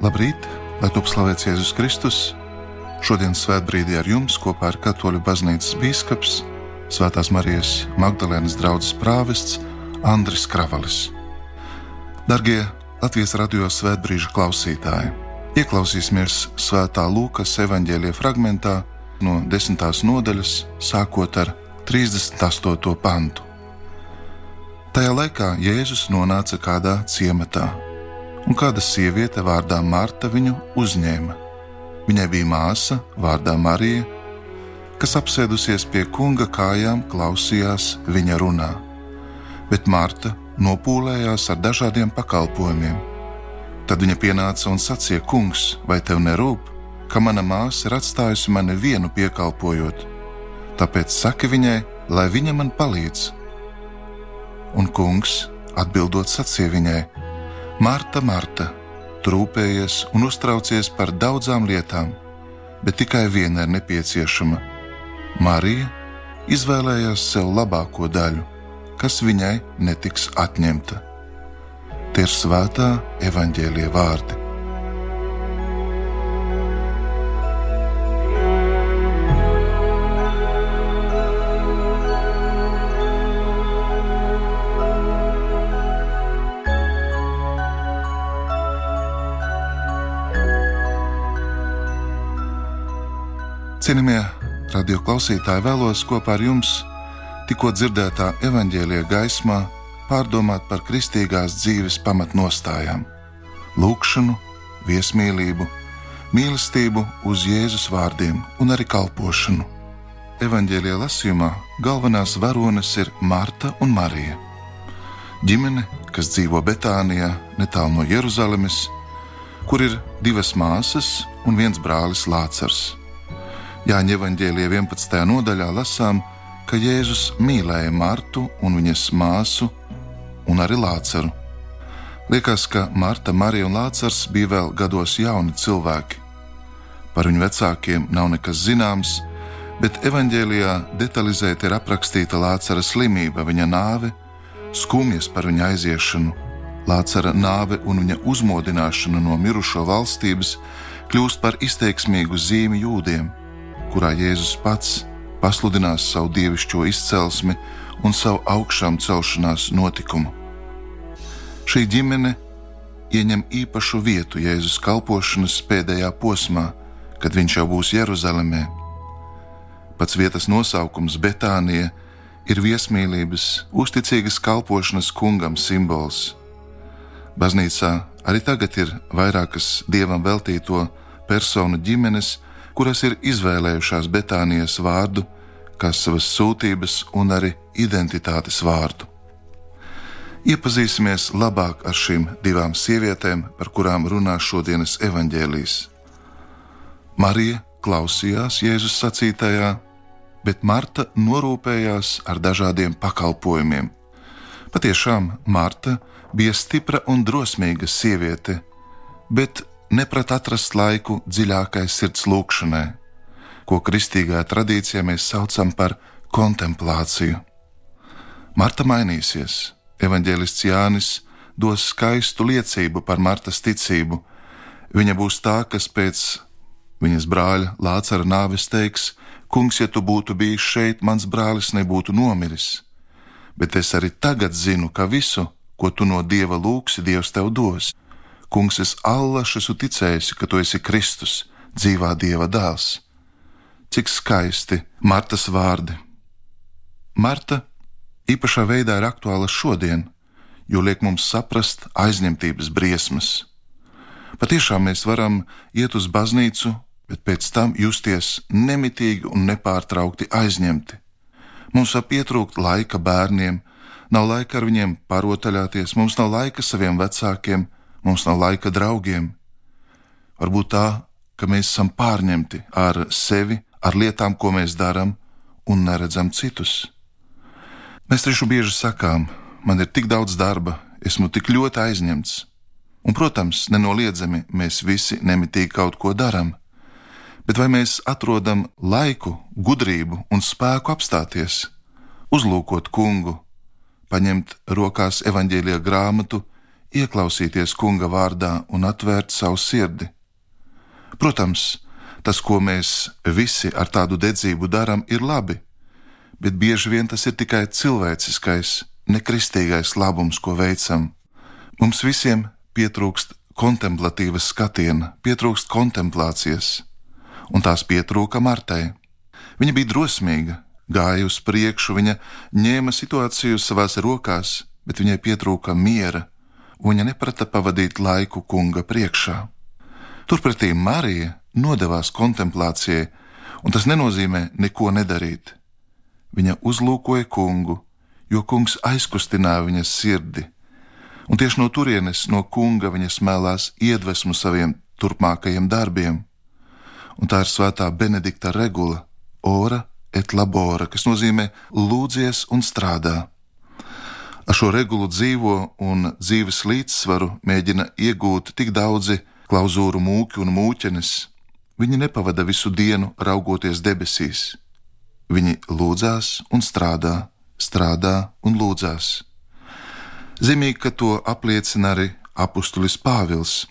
Labrīt, lai top slavēts Jēzus Kristus. Šodien svētbrīdī ar jums kopā ar Katoļu baznīcas bīskaps, Svētās Marijas Magdalēnas draudzes prāvests Andris Kravalis. Dargie Latvijas radio svētbrīža klausītāji, ieklausīsimies Svētā Lūkas evaņģēlija fragmentā no 10. nodaļas, sākot ar 38. pantu. Tajā laikā Jēzus nonāca kādā ciematā, un kāda sieviete vārdā Marta viņu uzņēma. Viņai bija māsa vārdā Marija, kas apsēdusies pie kunga kājām klausījās viņa runā, bet Marta nopūlējās ar dažādiem pakalpojumiem. Tad viņa pienāca un sacīja: Kungs, vai tev nerūp, ka mana māsa ir atstājusi mani vienu piekalpojot? Tāpēc saki viņai, lai viņa man palīdz. Un kungs atbildot sacīja viņai: Marta, Marta, tu rūpējies un uztraucies par daudzām lietām, bet tikai viena ir nepieciešama. Marija izvēlējās sev labāko daļu, kas viņai netiks atņemta. Tie ir svētā evaņģēlija vārdi. Cienījamie radio klausītāji, vēlos kopā ar jums tikko dzirdētā evaņģēlija gaismā pārdomāt par kristīgās dzīves pamatnostājām – lūgšanu, viesmīlību, mīlestību uz Jēzus vārdiem un arī kalpošanu. Evaņģēlija lasījumā galvenās varones ir Marta un Marija. Ģimene, kas dzīvo Betānijā, netālu no Jeruzalemes, kur ir 2 māsas un 1 brālis Lācars. Jāņa evaņģēlija 11. nodaļā lasām, ka Jēzus mīlēja Martu un viņas māsu un arī Lācaru. Liekas, ka Marta, Marija un Lācars bija vēl gados jauni cilvēki. Par viņu vecākiem nav nekas zināms, bet evaņģēlijā detalizēti ir aprakstīta Lācara slimība, viņa nāve, skumjas par viņa aiziešanu. Lācara nāve un viņa uzmodināšana no mirušo valstības kļūst par izteiksmīgu zīmi jūdiem, kurā Jēzus pats pasludinās savu dievišķo izcelsmi un savu augšām celšanās notikumu. Šī ģimene ieņem īpašu vietu Jēzus kalpošanas pēdējā posmā, kad viņš jau būs Jeruzalemē. Pats vietas nosaukums Betānija ir viesmīlības, uzticīgas kalpošanas kungam simbols. Baznīcā arī tagad ir vairākas dievam veltīto personu ģimenes, kuras ir izvēlējušās Betānijas vārdu kā savas sūtības un arī identitātes vārdu. Iepazīsimies labāk ar šīm 2 sievietēm, par kurām runā šodienas evaņģēlijs. Marija klausījās Jēzus sacītajā, bet Marta norūpējās ar dažādiem pakalpojumiem. Patiešām Marta bija stipra un drosmīga sieviete, bet neprat atrast laiku dziļākai sirds lūgšanai, ko kristīgā tradīcijā mēs saucam par kontemplāciju. Marta mainīsies. Evaņģēlists Jānis dos skaistu liecību par Martas ticību. Viņa būs tā, kas pēc viņas brāļa Lācara nāves teiks: Kungs, ja tu būtu bijis šeit, mans brālis nebūtu nomiris. Bet es arī tagad zinu, ka visu, ko tu no Dieva lūgsi, Dievs tev dos. Kungs, es allaž esmu ticējusi, ka tu esi Kristus, dzīvā Dieva dēls. Cik skaisti Martas vārdi. Marta īpašā veidā ir aktuāla šodien, jo liek mums saprast aizņemtības briesmas. Patiešām mēs varam iet uz baznīcu, bet pēc tam justies nemitīgi un nepārtraukti aizņemti. Mums var pietrūkt laika bērniem, nav laika ar viņiem parotaļāties, mums nav laika saviem vecākiem, mums nav laika draugiem. Varbūt tā, ka mēs esam pārņemti ar sevi, ar lietām, ko mēs darām, un neredzam citus. Mēs taču bieži sakām: man ir tik daudz darba, esmu tik ļoti aizņemts. Un, protams, nenoliedzami mēs visi nemitīgi kaut ko darām. Bet vai mēs atrodam laiku, gudrību un spēku apstāties, uzlūkot kungu, paņemt rokās evaņģēlija grāmatu, ieklausīties kunga vārdā un atvērt savu sirdi. Protams, tas, ko mēs visi ar tādu dedzību darām, ir labi, bet bieži vien tas ir tikai cilvēciskais, nekristīgais labums, ko veicam. Mums visiem pietrūkst kontemplatīvas skatiena, pietrūkst kontemplācijas, un tās pietrūka Martai. Viņa bija drosmīga, gāja uz priekšu, viņa ņēma situāciju savās rokās, bet viņai pietrūka miera, un viņa neprata pavadīt laiku kunga priekšā. Turpretī Marija nodevās kontemplācijai, un tas nenozīmē neko nedarīt. Viņa uzlūkoja kungu, jo kungs aizkustināja viņas sirdi, un tieši no turienes, no kunga, viņa smēlās iedvesmu saviem turpmākajiem darbiem. Un tā ir svētā Benedikta regula, ora et labora, kas nozīmē lūdzies un strādā. Ar šo regulu dzīvo un dzīves līdzsvaru mēģina iegūt tik daudzi klauzūru mūki un mūķenes. Viņi nepavada visu dienu raugoties debesīs. Viņi lūdzās un strādā, strādā un lūdzās. Zīmīgi, ka to apliecina arī apustulis Pāvils.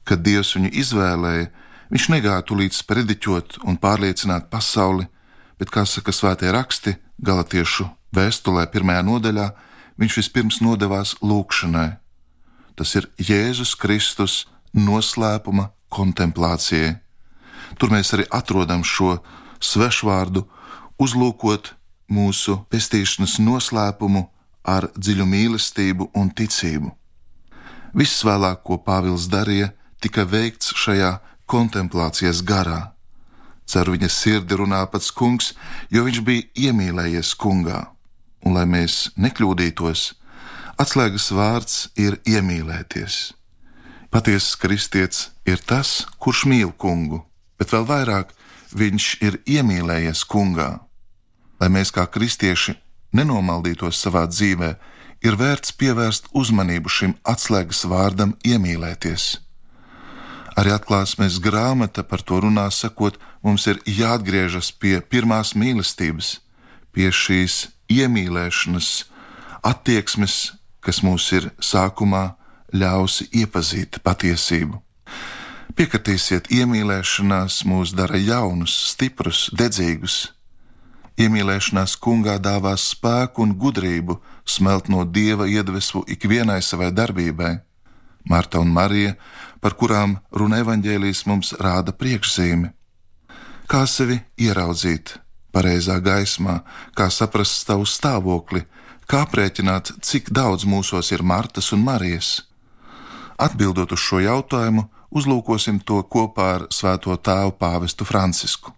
Kad Dievs viņu izvēlēja, viņš negāja tūlīt sprediķot un pārliecināt pasauli, bet, kā saka svētie raksti, Galatiešu vēstulē 1. nodaļā, viņš vispirms nodevās lūgšanai. Tas ir Jēzus Kristus noslēpuma kontemplācijai. Tur mēs arī atrodam šo svešvārdu uzlūkot mūsu pestīšanas noslēpumu ar dziļu mīlestību un ticību. Viss vēlāk, ko Pāvils darīja, tika veikts šajā kontemplācijas garā. Ceru, viņa sirdi runā pats kungs, jo viņš bija iemīlējies kungā. Un, lai mēs nekļūdītos, atslēgas vārds ir iemīlēties. Patiesas kristietis ir tas, kurš mīl kungu, bet vēl vairāk viņš ir iemīlējies kungā. Lai mēs kā kristieši nenomaldītos savā dzīvē, ir vērts pievērst uzmanību šim atslēgas vārdam iemīlēties. Arī Atklāsmes grāmata par to runā, sakot, mums ir jāatgriežas pie pirmās mīlestības, pie šīs iemīlēšanas attieksmes, kas mūs ir sākumā ļausi iepazīt patiesību. Piekritīsiet, iemīlēšanās mūs dara jaunus, stiprus, dedzīgus. Iemīlēšanās kungā dāvās spēku un gudrību smelt no Dieva iedvesmu ikvienai savai darbībai. Marta un Marija, par kurām runa evaņģēlijs, mums rāda priekšzīmi. Kā sevi ieraudzīt pareizā gaismā, kā saprast savu stāvokli, kā aprēķināt, cik daudz mūsos ir Martas un Marijas. Atbildot uz šo jautājumu, uzlūkosim to kopā ar svēto tēvu pāvestu Francisku.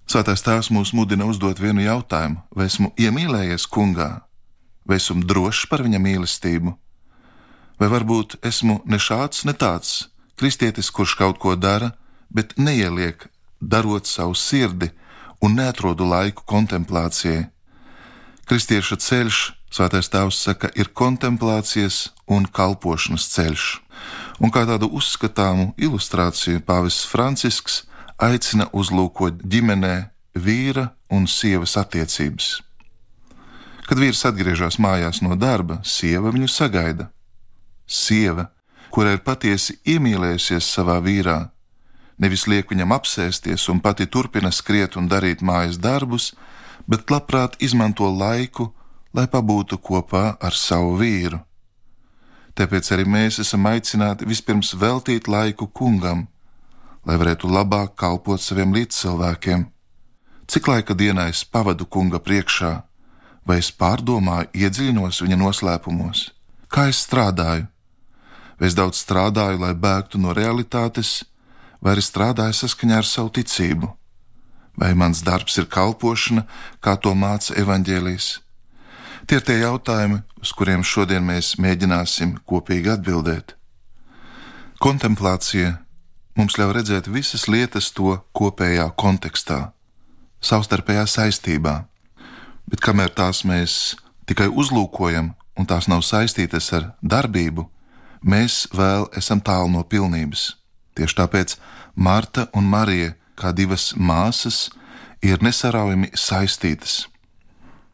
Svētais tēvs mūs mudina uzdot vienu jautājumu: vai esmu iemīlējies kungā, vai esmu drošs par viņa mīlestību? Vai varbūt esmu ne šāds, ne tāds kristietis, kurš kaut ko dara, bet neieliek, darot savu sirdi un neatrodu laiku kontemplācijai? Kristieša ceļš, svētais tēvs saka, ir kontemplācijas un kalpošanas ceļš. Un kā tādu uzskatāmu ilustrāciju pāvests Francisks aicina uzlūkot ģimenē vīra un sievas attiecības. Kad vīrs atgriežas mājās no darba, sieva viņu sagaida. Sieva, kura ir patiesi iemīlējusies savā vīrā, nevis liek viņam apsēsties un pati turpina skriet un darīt mājas darbus, bet labprāt izmanto laiku, lai pabūtu kopā ar savu vīru. Tāpēc arī mēs esam aicināti vispirms veltīt laiku kungam, lai varētu labāk kalpot saviem līdzcilvēkiem. Cik laika dienā es pavadu kunga priekšā, vai es pārdomāju, iedziļinos viņa noslēpumos? Kā es strādāju? Vai es daudz strādāju, lai bēgtu no realitātes, vai arī strādāju saskaņā ar savu ticību? Vai mans darbs ir kalpošana, kā to māca evaņģēlijs? Tie ir tie jautājumi, uz kuriem šodien mēs mēģināsim kopīgi atbildēt. Kontemplācija mums ļauj redzēt visas lietas to kopējā kontekstā, savstarpējā saistībā, bet kamēr tās mēs tikai uzlūkojam un tās nav saistītas ar darbību, mēs vēl esam tālu no pilnības. Tieši tāpēc Marta un Marija, kā divas māsas, ir nesaraujami saistītas.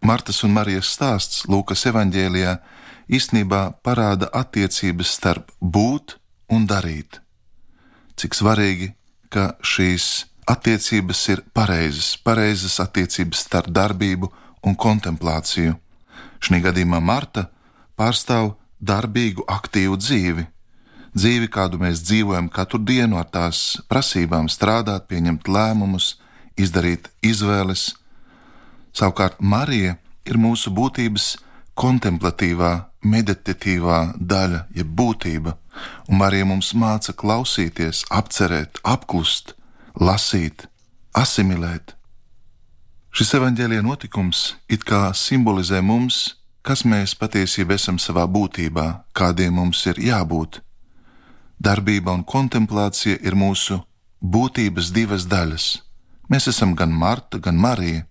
Martas un Marijas stāsts Lūkas evaņģēlijā īstenībā parāda attiecības starp būt un darīt. Cik svarīgi, ka šīs attiecības ir pareizas attiecības starp darbību un kontemplāciju. Šī gadījumā Marta pārstāv darbīgu, aktīvu dzīvi, kādu mēs dzīvojam katru dienu ar tās prasībām strādāt, pieņemt lēmumus, izdarīt izvēles. Savukārt Marija ir mūsu būtības kontemplatīvā, meditatīvā daļa, jeb būtība, un Marija mums māca klausīties, apcerēt, apklust, lasīt, asimilēt. Šis evaņģēlija notikums it kā simbolizē mums, kas mēs patiesībā esam savā būtībā, kādiem mums ir jābūt. Darbība un kontemplācija ir mūsu būtības divas daļas. Mēs esam gan Marta, gan Marija.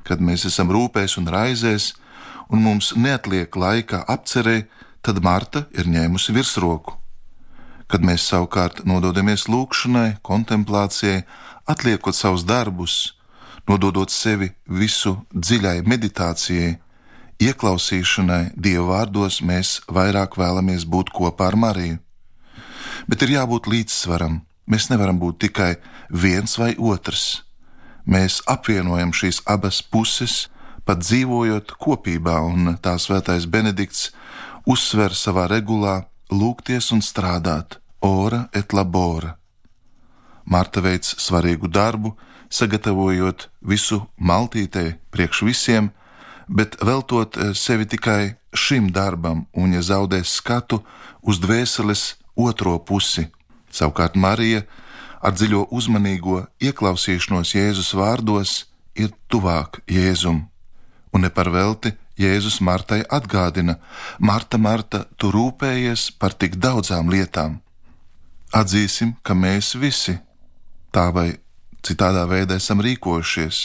Kad mēs esam rūpēs un raizēs, un mums neatliek laika apcerē, tad Marta ir ņēmusi virsroku. Kad mēs savukārt nododamies lūkšanai, kontemplācijai, atliekot savus darbus, nododot sevi visu dziļai meditācijai, ieklausīšanai Dieva vārdos, mēs vairāk vēlamies būt kopā ar Mariju. Bet ir jābūt līdzsvaram. Mēs nevaram būt tikai viens vai otrs. Mēs apvienojam šīs abas puses, pat dzīvojot kopībā, un tā svētais Benedikts uzsver savā regulā lūgties un strādāt, ora et labora. Marta veic svarīgu darbu, sagatavojot visu maltītei priekš visiem, bet veltot sevi tikai šim darbam, un ja zaudēs skatu uz dvēseles otro pusi. Savukārt Marija ar dziļo uzmanīgo ieklausīšanos Jēzus vārdos ir tuvāk Jēzum. Un ne par velti Jēzus Martai atgādina: Marta, Marta, tu rūpējies par tik daudzām lietām. Atzīsim, ka mēs visi tā vai citādā veidā esam rīkojušies.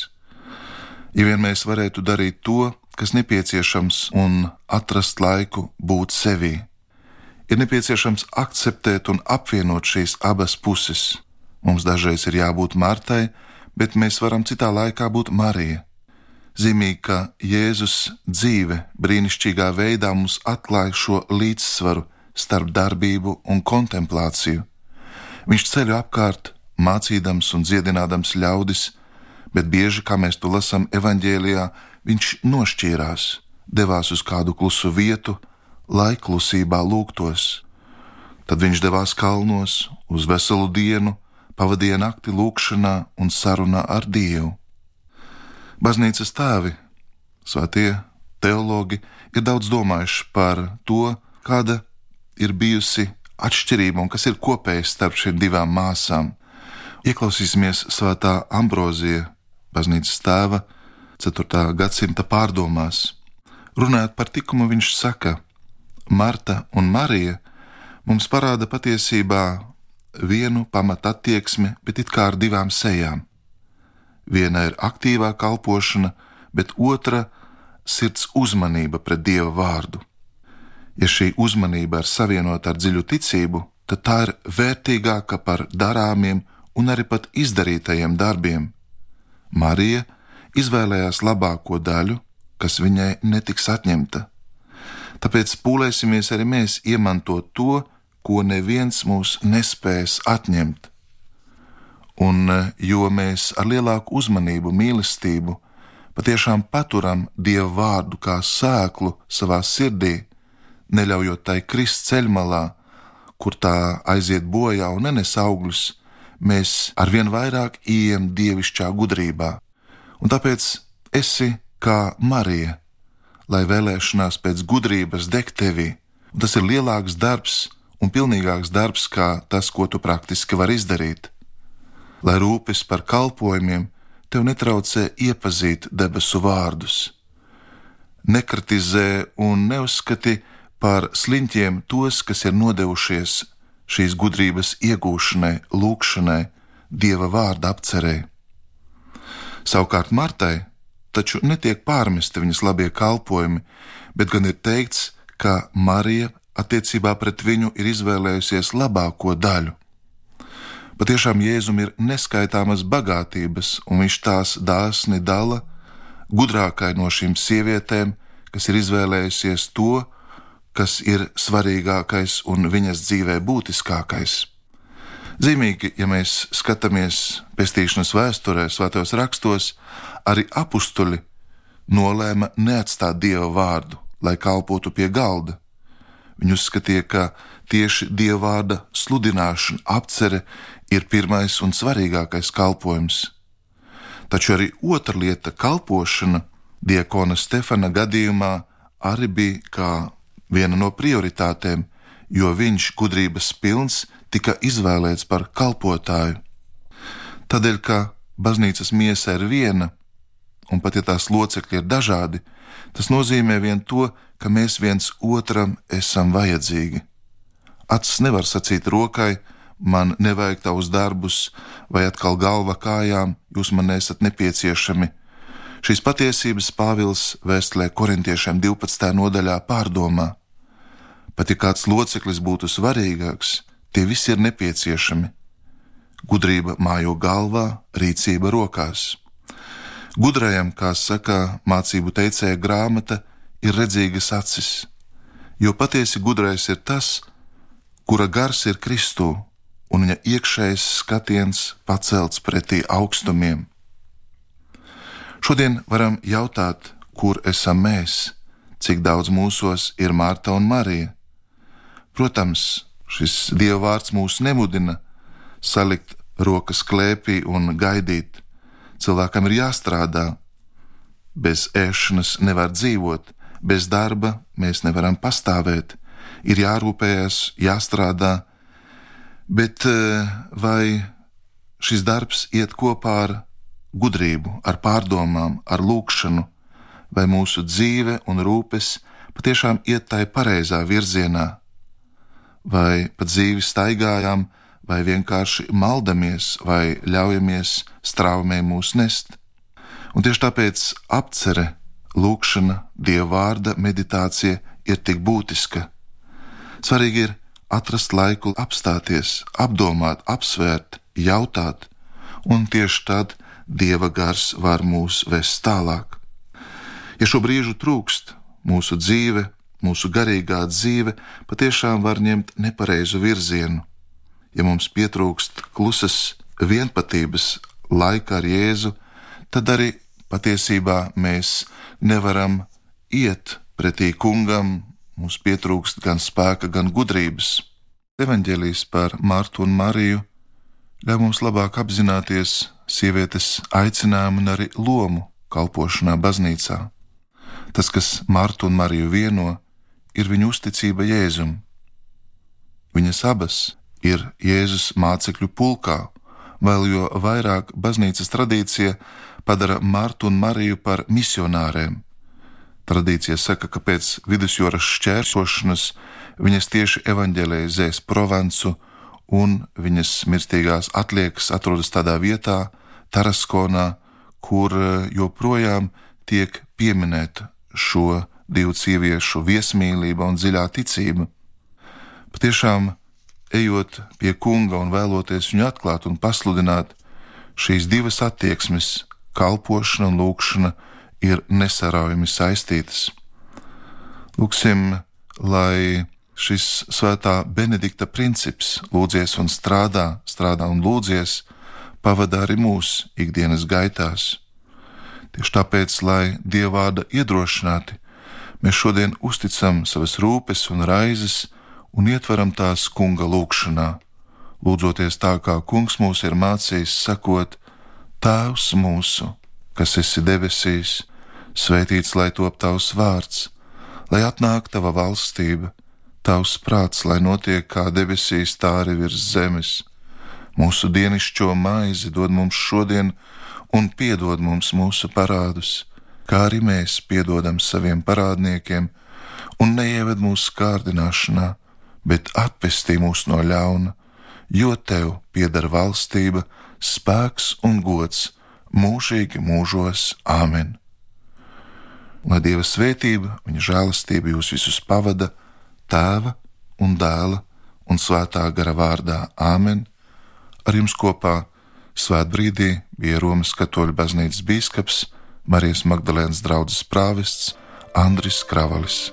Ja vien mēs varētu darīt to, kas nepieciešams, un atrast laiku būt sevī, ir nepieciešams akceptēt un apvienot šīs abas puses. Mums dažreiz ir jābūt Martai, bet mēs varam citā laikā būt Marija. Zīmīgi, ka Jēzus dzīve brīnišķīgā veidā mums atklāja šo līdzsvaru starp darbību un kontemplāciju. Viņš ceļo apkārt, mācīdams un dziedinādams ļaudis, bet bieži, kā mēs to lasām evaņģēlijā, viņš nošķīrās, devās uz kādu klusu vietu, lai klusībā lūgtos. Tad viņš devās kalnos uz veselu dienu, pavadīja nakti lūgšanā un sarunā ar Dievu. Baznīcas tēvi, svētie teologi, ir daudz domājuši par to, kāda ir bijusi atšķirība un kas ir kopējs starp šīm divām māsām. Ieklausīsimies svētā Ambrozija, baznīcas tēva, 4. gadsimta pārdomās. Runājot par tikumu, viņš saka: Marta un Marija mums parāda patiesībā vienu pamata attieksmi, bet it kā ar divām sejām. Viena ir aktīvā kalpošana, bet otra sirds uzmanība pret Dieva vārdu. Ja šī uzmanība ir savienota ar dziļu ticību, tad tā ir vērtīgāka par darāmiem un arī pat izdarītajiem darbiem. Marija izvēlējās labāko daļu, kas viņai netiks atņemta. Tāpēc pūlēsimies arī mēs iemantot to, ko neviens mūs nespēs atņemt. Un jo mēs ar lielāku uzmanību, mīlestību patiešām paturam Dieva vārdu kā sēklu savā sirdī, neļaujot tai krist ceļmalā, kur tā aiziet bojā un nenes augļus, mēs arvien vairāk ieejam dievišķā gudrībā. Un tāpēc esi kā Marija, lai vēlēšanās pēc gudrības deg tevī. Un tas ir lielāks darbs un pilnīgāks darbs, kā tas, ko tu praktiski vari izdarīt. Lai rūpes par kalpojumiem tev netraucē iepazīt debesu vārdus. Nekritizē un neuzskati par sliņķiem tos, kas ir nodevušies šīs gudrības iegūšanai, lūkšanai, Dieva vārda apcerē. Savukārt Martai taču netiek pārmesti viņas labie kalpojumi, bet gan ir teikts, ka Marija attiecībā pret viņu ir izvēlējusies labāko daļu. Patiešām Jēzum ir neskaitāmas bagātības, un viņš tās dāsni dala gudrākai no šīm sievietēm, kas ir izvēlējusies to, kas ir svarīgākais un viņas dzīvē būtiskākais. Zīmīgi, ja mēs skatāmies pestīšanas vēsturē, svētajos rakstos, arī apustuļi nolēma neatstāt Dieva vārdu, lai kalpotu pie galda. Viņi uzskatīja, ka tieši Dieva vārda sludināšana, apcere ir pirmais un svarīgākais kalpojums. Taču arī otra lieta, kalpošana, diakona Stefana gadījumā arī bija kā viena no prioritātēm, jo viņš, gudrības pilns, tika izvēlēts par kalpotāju. Tādēļ, ka baznīcas miesa ir viena, un pat ja tās locekļi ir dažādi, tas nozīmē vien to, ka mēs viens otram esam vajadzīgi. Acis nevar sacīt rokai, man nevajag tavus darbus, vai atkal galva kājām, jūs man esat nepieciešami. Šīs patiesības Pāvils vēstulē korintiešiem 12. nodaļā pārdomā. Pat ja kāds loceklis būtu svarīgāks, tie visi ir nepieciešami. Gudrība mājo galvā, rīcība rokās. Gudrajam, kā saka mācību teicēja grāmata, ir redzīgas acis, jo patiesi gudrais ir tas, kura gars ir Kristū, un viņa iekšējais skatiens pacelts pretī augstumiem. Šodien varam jautāt, kur esam mēs, cik daudz mūsos ir Marta un Marija. Protams, šis Dieva vārds mūs nemudina salikt rokas klēpī un gaidīt. Cilvēkam ir jāstrādā. Bez ēšanas nevar dzīvot, bez darba mēs nevaram pastāvēt. Ir jārūpējas, jāstrādā, bet vai šis darbs iet kopā ar gudrību, ar pārdomām, ar lūgšanu, vai mūsu dzīve un rūpes patiešām iet tai pareizā virzienā, vai pa dzīvi staigājām, vai vienkārši maldamies, vai ļaujamies straumēm mūs nest. Un tieši tāpēc apcere, lūgšana, Dieva vārda meditācija ir tik būtiska. Svarīgi ir atrast laiku apstāties, apdomāt, apsvērt, jautāt, un tieši tad Dieva gars var mūs vest tālāk. Ja šo brīžu trūkst, mūsu dzīve, mūsu garīgā dzīve patiešām var ņemt nepareizu virzienu. Ja mums pietrūkst klusas vienpatības laika ar Jēzu, tad arī patiesībā mēs nevaram iet pretī kungam, mums pietrūkst gan spēka, gan gudrības. Evaņģēlijs par Martu un Mariju ļauj mums labāk apzināties sievietes aicinājumu un arī lomu kalpošanā baznīcā. Tas, kas Martu un Mariju vieno, ir viņu uzticība Jēzum. Viņas abas ir Jēzus mācekļu pulkā, vēl jo vairāk baznīcas tradīcija padara Martu un Mariju par misionāriem. Tradīcija saka, ka pēc vidusjūras šķērsošanas viņas tieši evaņģelizēs Provansu, un viņas mirstīgās atliekas atrodas tādā vietā, Taraskonā, kur joprojām tiek pieminēta šo divu sieviešu viesmīlība un dziļā ticība. Patiešām, ejot pie kunga un vēloties viņu atklāt un pasludināt, šīs divas attieksmes, kalpošana un lūgšana, ir nesaraujami saistītas. Lūksim, lai šis svētā Benedikta princips lūdzies un strādā un lūdzies, pavadā arī mūsu ikdienas gaitās. Tieši tāpēc, lai Dieva vārda iedrošināti, mēs šodien uzticam savas rūpes un raizes un ietveram tās kunga lūgšanā, lūdzoties tā, kā kungs mūs ir mācījis, sakot: Tēvs mūsu, kas esi debesīs, svētīts lai top tavs vārds, lai atnāk tava valstība, tavs prāts, lai notiek kā debesīs, tā arī virs zemes. Mūsu dienišķo maizi dod mums šodien un piedod mums mūsu parādus, kā arī mēs piedodam saviem parādniekiem, un neieved mūsu kārdināšanā, bet atpestī mūs no ļauna, jo tev pieder valstība, spēks un gods mūžīgi mūžos. Āmen. Lai Dieva svētība, viņa žēlastība jūs visus pavada, Tēva un Dēla un Svētā gara vārdā. Āmen. Ar jums kopā svētbrīdī bija Romas katoļu baznīcas bīskaps, Marijas Magdalēnas draudzes prāvests Andris Kravalis.